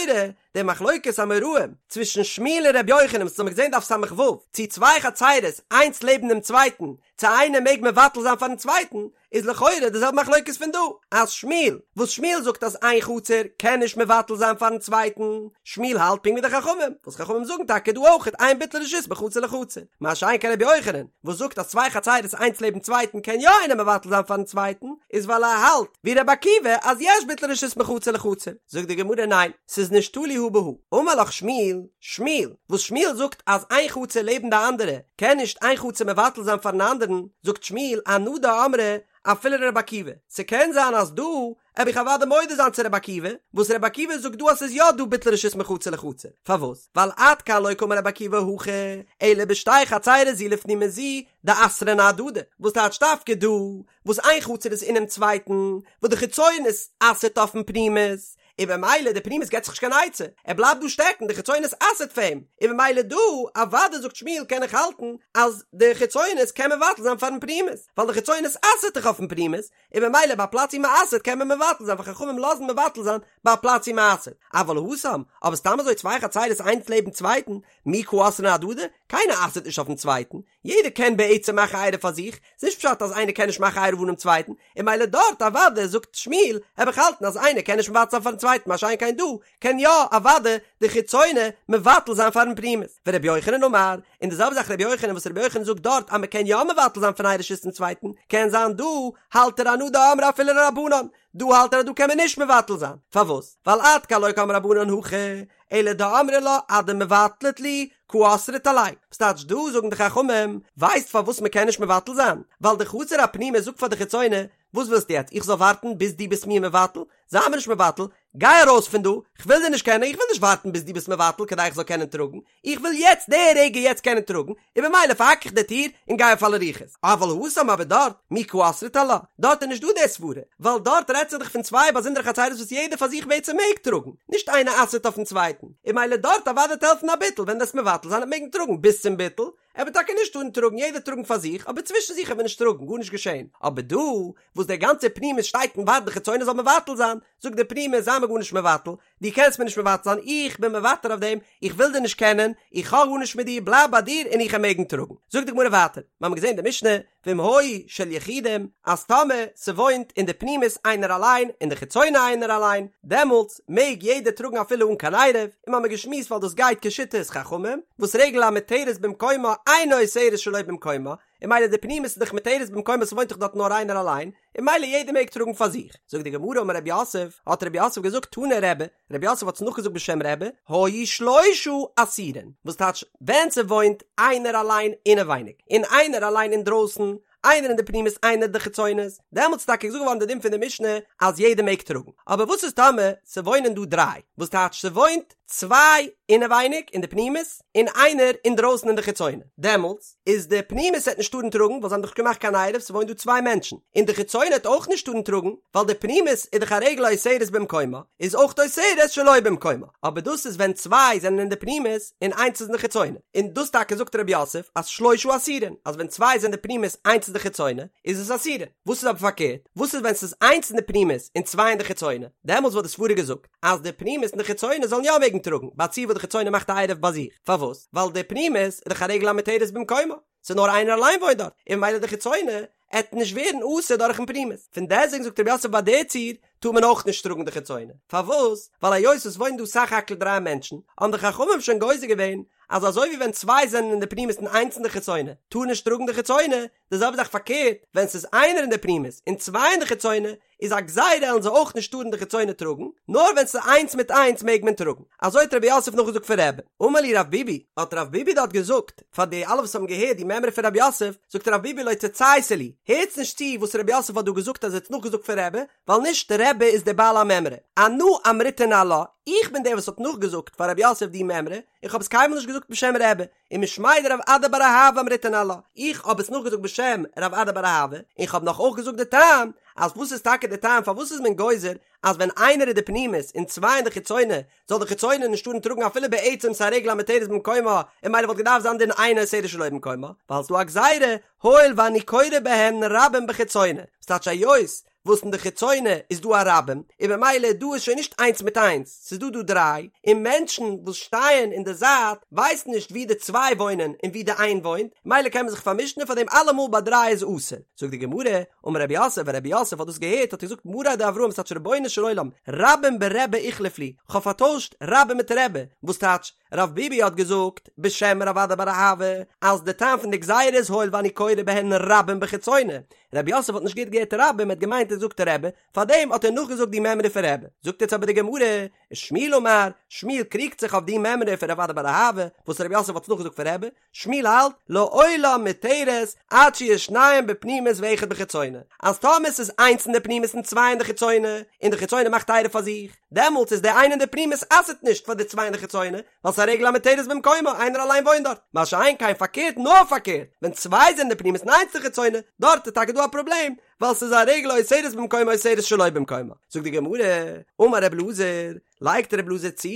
Speaker 1: די מחלוקת אמוראים צווישן שמואל און רבי יוחנן וואס האמיר געזען דף ס"ו, צו צוויי חצרות איינס לעבן דעם צווייטן, צו איינער מעג מבטל זיין פארן צווייטן, איז לכאורה די זעלבע מחלוקת פון דא, אז שמואל, וואס שמואל זאגט אז איין חצר קען נישט מבטל זיין פארן צווייטן, שמואל האלט פונקט ווי די חכמים, וואס חכמים זאגן טאקע דא אויך אין ביטול רשות מחצר לחצר, מה שאין כן רבי יוחנן, וואס זאגט אז צוויי חצרות איינס לעבן צווייטן קען יא איינער מבטל זיין פארן צווייטן, איז ווייל ער האלט ווי רבי עקיבא אז יש ביטול רשות מחצר לחצר, זאגט די גמרא ניין, ס'איז נישט תלוי הא בהא, אמר לך שמואל, שמואל, וואס שמואל זאגט אז איין חצר לעבן די אנדערע קען נישט איין חצר מבטל זיין פארן אנדערן, זאגט שמואל אנא דאמרי. אפילו לרבי עקיבא, ס'קען זיין אז דא העב איך אוודאי מודה זיין צו רבי עקיבא, וואס רבי עקיבא זאגט דא אז ס'איז יא דא ביטול רשות מחצר לחצר, פארוואס? ווייל עד כאן לא קאמר רבי עקיבא הכא, אלא בשתי חצירות זו לפנים מזו דאסרן אהדדי, וואס טייטש דווקא דא וואס איין חצר איז אינעם צווייטן, וואס די חיצונית אסר'ט אויפן פנימית, און במילא די פנימית געט זיך נישט קיין עצה, ער בלייבט דא שטעקן, די חיצונית אסר'ט פאר אים, און במילא דא אוודאי זאגט שמואל קען איך האלטן אז די חיצונית קען מבטל זיין פארן פנימית, ווייל די חיצונית אסר'ט דאך אויפן פנימית, און במילא ביי א פלאץ ווי מ'אסר'ט קען מען מבטל זיין ווייל חכמים לאזן מבטל זיין ביי א פלאץ ווי מ'אסר'ט, אבל התם, אבער סתם אזוי צוויי חצירות איינס לעבן צווייטן, מי קא אסרן אהדדי, קיינער אסר'ט נישט אויפן צווייטן, יעדער קען בעצם מאכן עירוב פאר זיך, ס'איז נישט פשט אז איינער קען נישט מאכן עירוב אנעם צווייטן, און מילא דארט אוודאי זאגט שמואל, העב איך האלטן אז איינער קען נישט מבטל זיין פארן צווייטן מה שאין כן דא, קען יא אוודאי די חיצונה מבטל זיין פארן פנימית. ורבי יוחנן אמר, און די זעלבע זאך רבי יוחנן וואס רבי יוחנן זאגט דארט אז מ'קען יא מבטל זיין פון איין רשות צום צווייטן, קען זיין דא האלט ער אנא דאמרי אפילו לרבנן, דא האלט ער אז דא קען מען נישט מבטל זיין, פארוואס? ווייל עד כאן לא קאמרי רבנן הכא, אלא דאמרי לה אדמבטלת לי קא אסרת עלי, וואס טייטש דא זאגן די חכמים, ווייסט פארוואס מען קען נישט מבטל זיין? ווייל די חצר הפנימית זאגט פאר די חיצונה, וואס ווילסטו יעצט איך זאל ווארטן ביז דו ביסט מיר מבטל? זיי מיר נישט מבטל, גיי ארויס פון דא, כ'וויל דיר נישט קענען, איך וויל נישט ווארטן ביז דו ביסט מבטל כדי איך זאל קענען טראגן, איך וויל יעצט די רגע יעצט קענען טראגן, און במילא פארהאק איך די טיר און גיי אויף אלע רוחות. אבל התם אבער דארט, מי קא אסרת עלה, דארט איז נישט דא די סברה, ווייל דארט רעדט זיך דאך פון צוויי באזונדערע חצירות וואס יעדער פאר זיך בעצם מעג טראגן, נישט איינער אסר'ט אויפן צווייטן, און מילא דארט אוודאי וועט העלפן א ביטול, ווען דו'סט מבטל זיין וועט מעגן טראגן ביז צום ביטול, ער וועט טאקע נישט טארן טראגן, יעדער טראגן פאר זיך, אבער צווישן זיך וועט מען נישט טראגן, גארנישט געשען. אבער דא, וואס דער גאנצער פנימית שטייט און ווארט די חיצונה זאל מבטל זיין, זאגט דער פנימית זיי מיר גארנישט מבטל, דו קענסט מיר נישט מבטל זיין, איך בין מוותר אויף דעם, איך וויל דיר נישט קענען, איך האב גארנישט מיט דיר, בלייב ביי דיר און איך וועל מעגן טראגן. זאגט די גמרא ווייטער, מיר האבן געזען די משנה, ואם היו של יחידים, אז טאמער ס'וואוינט אין די פנימית איינער אליין, אין די חיצונה איינער אליין, דעמאלטס מעג יעדער טראגן אפילו אן קיין עירוב, און מיר האבן געשמועסט ווייל דאס גייט כשיטת חכמים, וואס רגל המותרת במקומה אינה אוסרת שלא במקומה, און מילא די פנימית איז דאך מותרת במקומה ס'וואוינט דאך דארט נאר איינער אליין, און מילא יעדער מעג טראגן פאר זיך. זאגט די גמרא אמר רב יוסף, האט רב יוסף געזאגט תנא רבי, רב יוסף האט עס נאכגעזאגט בשם רבי, היו שלושה אסורין, וואס טייטש ווען ס'וואוינט איינער אליין אינעווייניג, און איינער אליין אינדרויסן, איינער אין די פנימית איינער אין די חיצונית, דעמאלטס איז טאקע געזאגט געווארן די דין פון די משנה אז יעדער מעג טראגן, אבער וואס איז טאמער ס'וואוינען דא דריי, וואס טייטש ס'וואוינט צוויי אינעווייניג אין די פנימית און איינער אינדרויסן אין די חיצונה, דעמאלטס איז די פנימית העט נישט טארן טראגן ווייל זיי האבן דאך געמאכט קיין עירוב ס'וואוינט דא צוויי מענטשן, און די חיצונה העט אויך נישט טארן טראגן ווייל די פנימית איז דאך א רגל האוסרת במקומה איז אויך אוסרת שלא במקומה, אבער דאס איז ווען צוויי זענען אין די פנימית און איינס איז אין די חיצונה, און דאס טאקע זאגט רב יוסף אז שלושה אסורין אז ווען צוויי זענען די פנימית איינס איז די חיצונה איז עס אסורין, וואס איז אבער פארקערט וואס איז ווען ס'איז איינס אין די פנימית און צוויי אין די חיצונה דעמאלטס וואלט די סברה געזאגט אז די פנימית און די חיצונה זאלן יא מעגן טראגן, ביי א ציור וואס די חיצונה מאכט א עירוב ביי זיך. פארוואס? ווייל די פנימית איז דאך א רגל המותרת במקומה, ס'איז נאר איינער אליין וואוינט דארט, און ממילא די חיצונה עט נישט ווערן אסור דורכן פנימית. פון דעסטוועגן זאגט רב יוסף ביי די ציור טאר מען אויך נישט טראגן די חיצונה. פארוואס? ווייל היות עס וואוינען דא סך הכל דריי מענטשן, האבן די חכמים שוין גוזר געווען אז אזוי ווי ווען צוויי זענען אין די פנימית און איינס אין די חיצונה טאר נישט טראגן די חיצונה, די זעלבע זאך פארקערט, ווען ס'איז איינער אין די פנימית און צוויי אין די חיצונה, איז א גזירה עלן זיי אויך נישט טארן די חיצונה טראגן, נאר ווען ס'איז איינס מיט איינס מעג מען טראגן. אזוי האט רב יוסף נאכגעזאגט פון רבי. אמר להו רב ביבי, האט רב ביבי דארט געזאגט, פאר די אלע וואס האבן געהערט די מימרא פון רב יוסף, זאגט רב ביבי לא תצייתו להו, הערטס נישט צו וואס רב יוסף האט דא געזאגט אז ער האט נאכגעזאגט פון רבי, ווייל נישט רבי איז דער בעל המימרא. אנא אמריתיה ניהלה, איך בין דער וואס האט נאכגעזאגט פאר רב יוסף די מימרא, און כ'האב עס קיינמאל נישט געזאגט בשם רבי. ומשמיה דרב אדא בר אהבה אמריתיה ניהלה, איך האב עס נאכגעזאגט בשם רב אדא בר אהבה, און כ'האב נאך אויך געזאגט די טעם, אז וואס איז טאקע די טעם פארוואס איז מען גוזר אז ווען איינער איז די פנימית און צוויי אין די חיצונה זאל די חיצונה נישט טארן טראגן אפילו בעצם ס'איז א רגל המותרת במקומה און מילא וואלט געדארפט זיין דין אינה אוסרת שלא במקומה ווייל ס'דא א גזירה הואיל ואני קורא בהן רבים בחיצונה וואס טייטש היות וואס אין די חיצונה איז דא א רבים, און במילא דא איז שוין נישט איינס מיט איינס, ס'איז דא דא דריי, און מענטשן וואס שטייען אין די זייט ווייסן נישט ווי די צוויי וואוינען און ווי די איין וואוינט, מילא קען מען זיך פארמישן און פאר דעם אלעמאל ביי דריי איז אסור. זאגט די גמרא, אמר רב יוסף, ווען רב יוסף האט דאס געהערט האט ער געזאגט מריה דאברהם ס'טייטש רבונו של עולם, רבים ברבי איחלף לי, כ'האב פארטוישט רבים מיט רבי, וואס טייטש, רב ביבי האט געזאגט בשם רב אדא בר אהבה אז די טעם פון די גזירה איז הואיל ואני קורא בהן רבים בחיצונה, רב יוסף האט נישט גוט געהערט רבים ער האט געמיינט האט געזאגט רבי, פארדעם האט ער נאכגעזאגט די מימרא פון רבי. זאגט יעצט אבער די גמרא, ושמואל אמר, שמואל קריגט זיך אויף די מימרא פון רב אדא בר אהבה, וואס רב יוסף האט עס נאכגעזאגט פון רבי, שמואל האלט, לעולם מותרת, עד שיהו שניים בפנימית ואחד בחיצונה, אז טאמער ס'איז איינס אין די פנימית און צוויי אין די חיצונה, און די חיצונה מאכט עירוב פאר זיך, דעמאלטס איז די איינע אין די פנימית אסר'ט נישט פאר די צוויי אין די חיצונה, ווייל ס'איז א רגל המותרת במקומה, איינער אליין וואוינט דארט. מה שאין כן פארקערט נאר פארקערט, ווען צוויי זענען אין די פנימית און איינס אין די חיצונה, דארט איז טאקע דא א פראבלעם, ווייל ס'איז א רגל האוסרת במקומה אוסרת שלא במקומה. זאגט די גמרא, אמר ר' אלעזר, לייגט ר' אלעזר צו,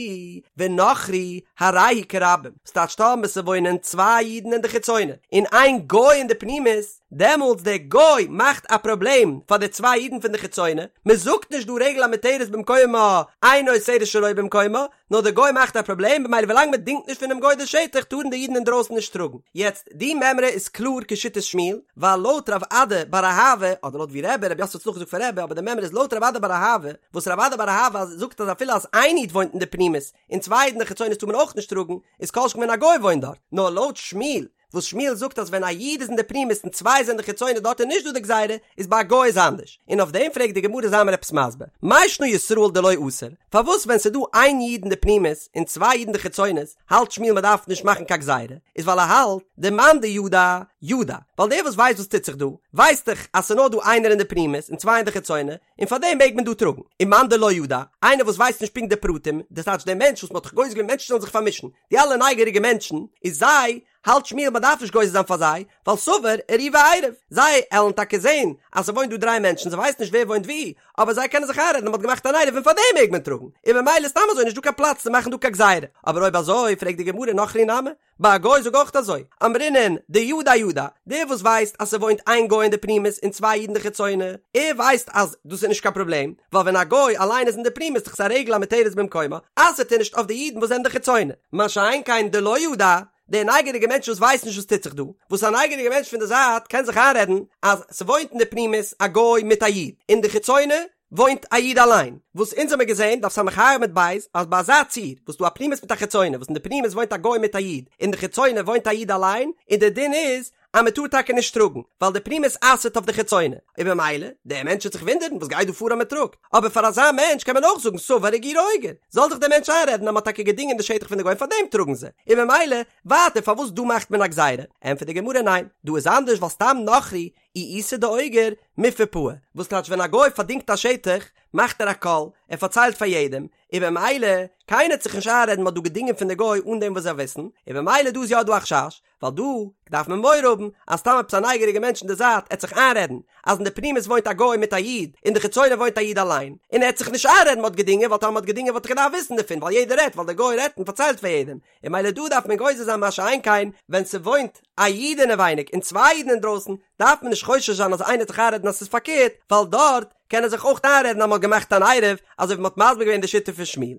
Speaker 1: ונכרי הרי הוא כרבים, ס'טייטש טאמער ס'וואוינען צוויי אידן אין די חיצונה, און איין גוי אין די פנימית, דעמאלטס דער גוי מאכט א פראבלעם פאר די צוויי אידן פון די חיצונה, מ'זאגט נישט דא רגל המותרת במקומה, אינה אוסרת שלא במקומה, נאר דער גוי מאכט א פראבלעם במילא ווילאנג מען דינגט נישט פונעם גוי די שטח טארן די אידן אינדרויסן נישט טראגן. יעצט די מימרא איז קלאר כשיטת שמואל, ווייל לויט רב אדא בר אהבה, אדער לויט ווי רבי, רב יוסף האט עס נאכגעזאגט פון רבי, אבער די מימרא איז לויט רב אדא בר אהבה, וואס רב אדא בר אהבה זאגט אז אפילו אז איין איד וואוינט אין די פנימית און צוויי אידן אין די חיצונית טאר מען אויך נישט טראגן, איז כל שכן ווען א גוי וואוינט דארט. נאר לויט שמואל, וואס שמואל זאגט אז ווען א איד איז אין די פנימית און צוויי זענען די חיצונה דארט איז נישט דא די גזירה, איז ביי א גוי איז אנדערש. און אויף דעם פרעגט די גמרא זיי מיר עפעס מסביר, מאי שנא ישראל דלא אסר, פארוואס ווען ס'איז דא איין איד אין די פנימית און צוויי אידן די חיצונות האלט שמואל מ'דארף נישט מאכן קיין גזירה, איז ווייל ער האלט דמאן דידע ידע, ווייל דער וואס ווייסט וואס טוט זיך דא, ווייסט דאך אז ס'איז נאר דא איינער אין די פנימית און צוויי אין די חיצונה, און פארדעם מעג מען דא טראגן. ומאן דלא ידע, איינער וואס ווייסט נישט פונקט די פרטים, דאס טייטש דער מענטש וואס מ'האט דאך גוזר געווען מענטשן זאלן זיך פארמישן, די אלע נייגעריגע מענטשן, איז זיי, האלט שמואל מ'דארף נישט גוזר זיין פאר זיי, ווייל סבר עירובי עירב, זיי עלן טאקע זען אז ס'וואוינט דא דריי מענטשן, זיי ווייסן נישט ווער וואוינט וואו, אבער זיי קענען זיך איינרעדן אז מ'האט געמאכט אן עירוב און פארדעם מעג מען טראגן, און ממילא סתם אזוי נישט דא קיין פלאץ צו מאכן דא קיין גזירה. אבער אויב אזוי, פרעגט די גמרא נכרי נמי, ביי א גוי זאג אויך אזוי, אמרינן דידע ידע, דער וואס ווייסט אז ס'וואוינט איין גוי אין די פנימית און צוויי אידן די חיצונה, ער ווייסט אז דאס איז נישט קיין פראבלעם, ווייל ווען א גוי אליין איז אין די פנימית איז דאך עס א רגל המותרת במקומה, אסר'ט ער נישט אויף די אידן וואס זענען די חיצונה. מה שאין כן דלא ידע, דער נייגעריגער מענטש וואס ווייסט נישט וואס טוט זיך דא, וואס א נייגעריגער מענטש פון די זייט קען זיך איינרעדן אז ס'וואוינט אין די פנימית א גוי מיט א איד, אין די חיצונה וואוינט א איד אליין, וואס אונז האמיר געזען, דף ס"ה עמוד ב', אז ביי אזא ציור, וואס דא א פנימית מיט א חיצונה, וואס אין די פנימית וואוינט א גוי מיט א איד, אין די חיצונה וואוינט א איד אליין, און דער דין איז אז מען טאר טאקע נישט טראגן, ווייל די פנימית אסר'ט אויף די חיצונה, און במילא, דער מענטש וועט זיך וואונדערן וואס גייט דא פאר אז מען טראגט, אבער פאר אזא מענטש קען מען אויך זאגן סבר אגירי אוגר, זאל זיך דער מענטש איינרעדן אז מען האט טאקע געדינגען די שטח פון די גוים פארדעם טראגן זיי, און במילא, ווייטער פארוואס דא מאכט מען א גזירה? ענטפערט די גמרא ניין, דא איז אנדערש ווייל סתם נכרי אי איתא דאוגר מיפעא פעי, וואס טייטש ווען א גוי פארדינגט א שטח מאכט ער א קול, ער פארציילט פאר יעדעם, און במילא קיינער וועט זיך נישט איינרעדן מ'האט דא געדינגען פון די גוי אן דעם וואס זיי וויסן, און במילא דא איז יא דא א חשש, ווייל דא דארף מען מורא האבן אז סתם עפעס א נייגעריגע מענטש אין די זייט עט זיך איינרעדן אז אין די פנימית וואוינט א גוי מיט א איד, אין די חיצונה וואוינט א איד אליין, און ער עט זיך נישט איינרעדן מ'האט געדינגען ווייל טאמער מ'האט געדינגען וואלט ער געדארפט וויסן דערפון ווייל יעדער רעדט ווייל דער גוי רעדט און פארציילט פאר יעדעם, און מילא דא דארף מען גוזר זיין מה שאין כן ווען ס'וואוינט א איד אינעווייניג און צוויי אידן אינדרויסן דארף מען נישט חושש זיין אז איינער וועט זיך איינרעדן אז ס'איז פארקערט ווייל דארט קען ער זיך אויך איינרעדן אז מ'האט געמאכט אן עירוב אזוי ווי מ'האט מסביר געווען די שיטה פון שמואל.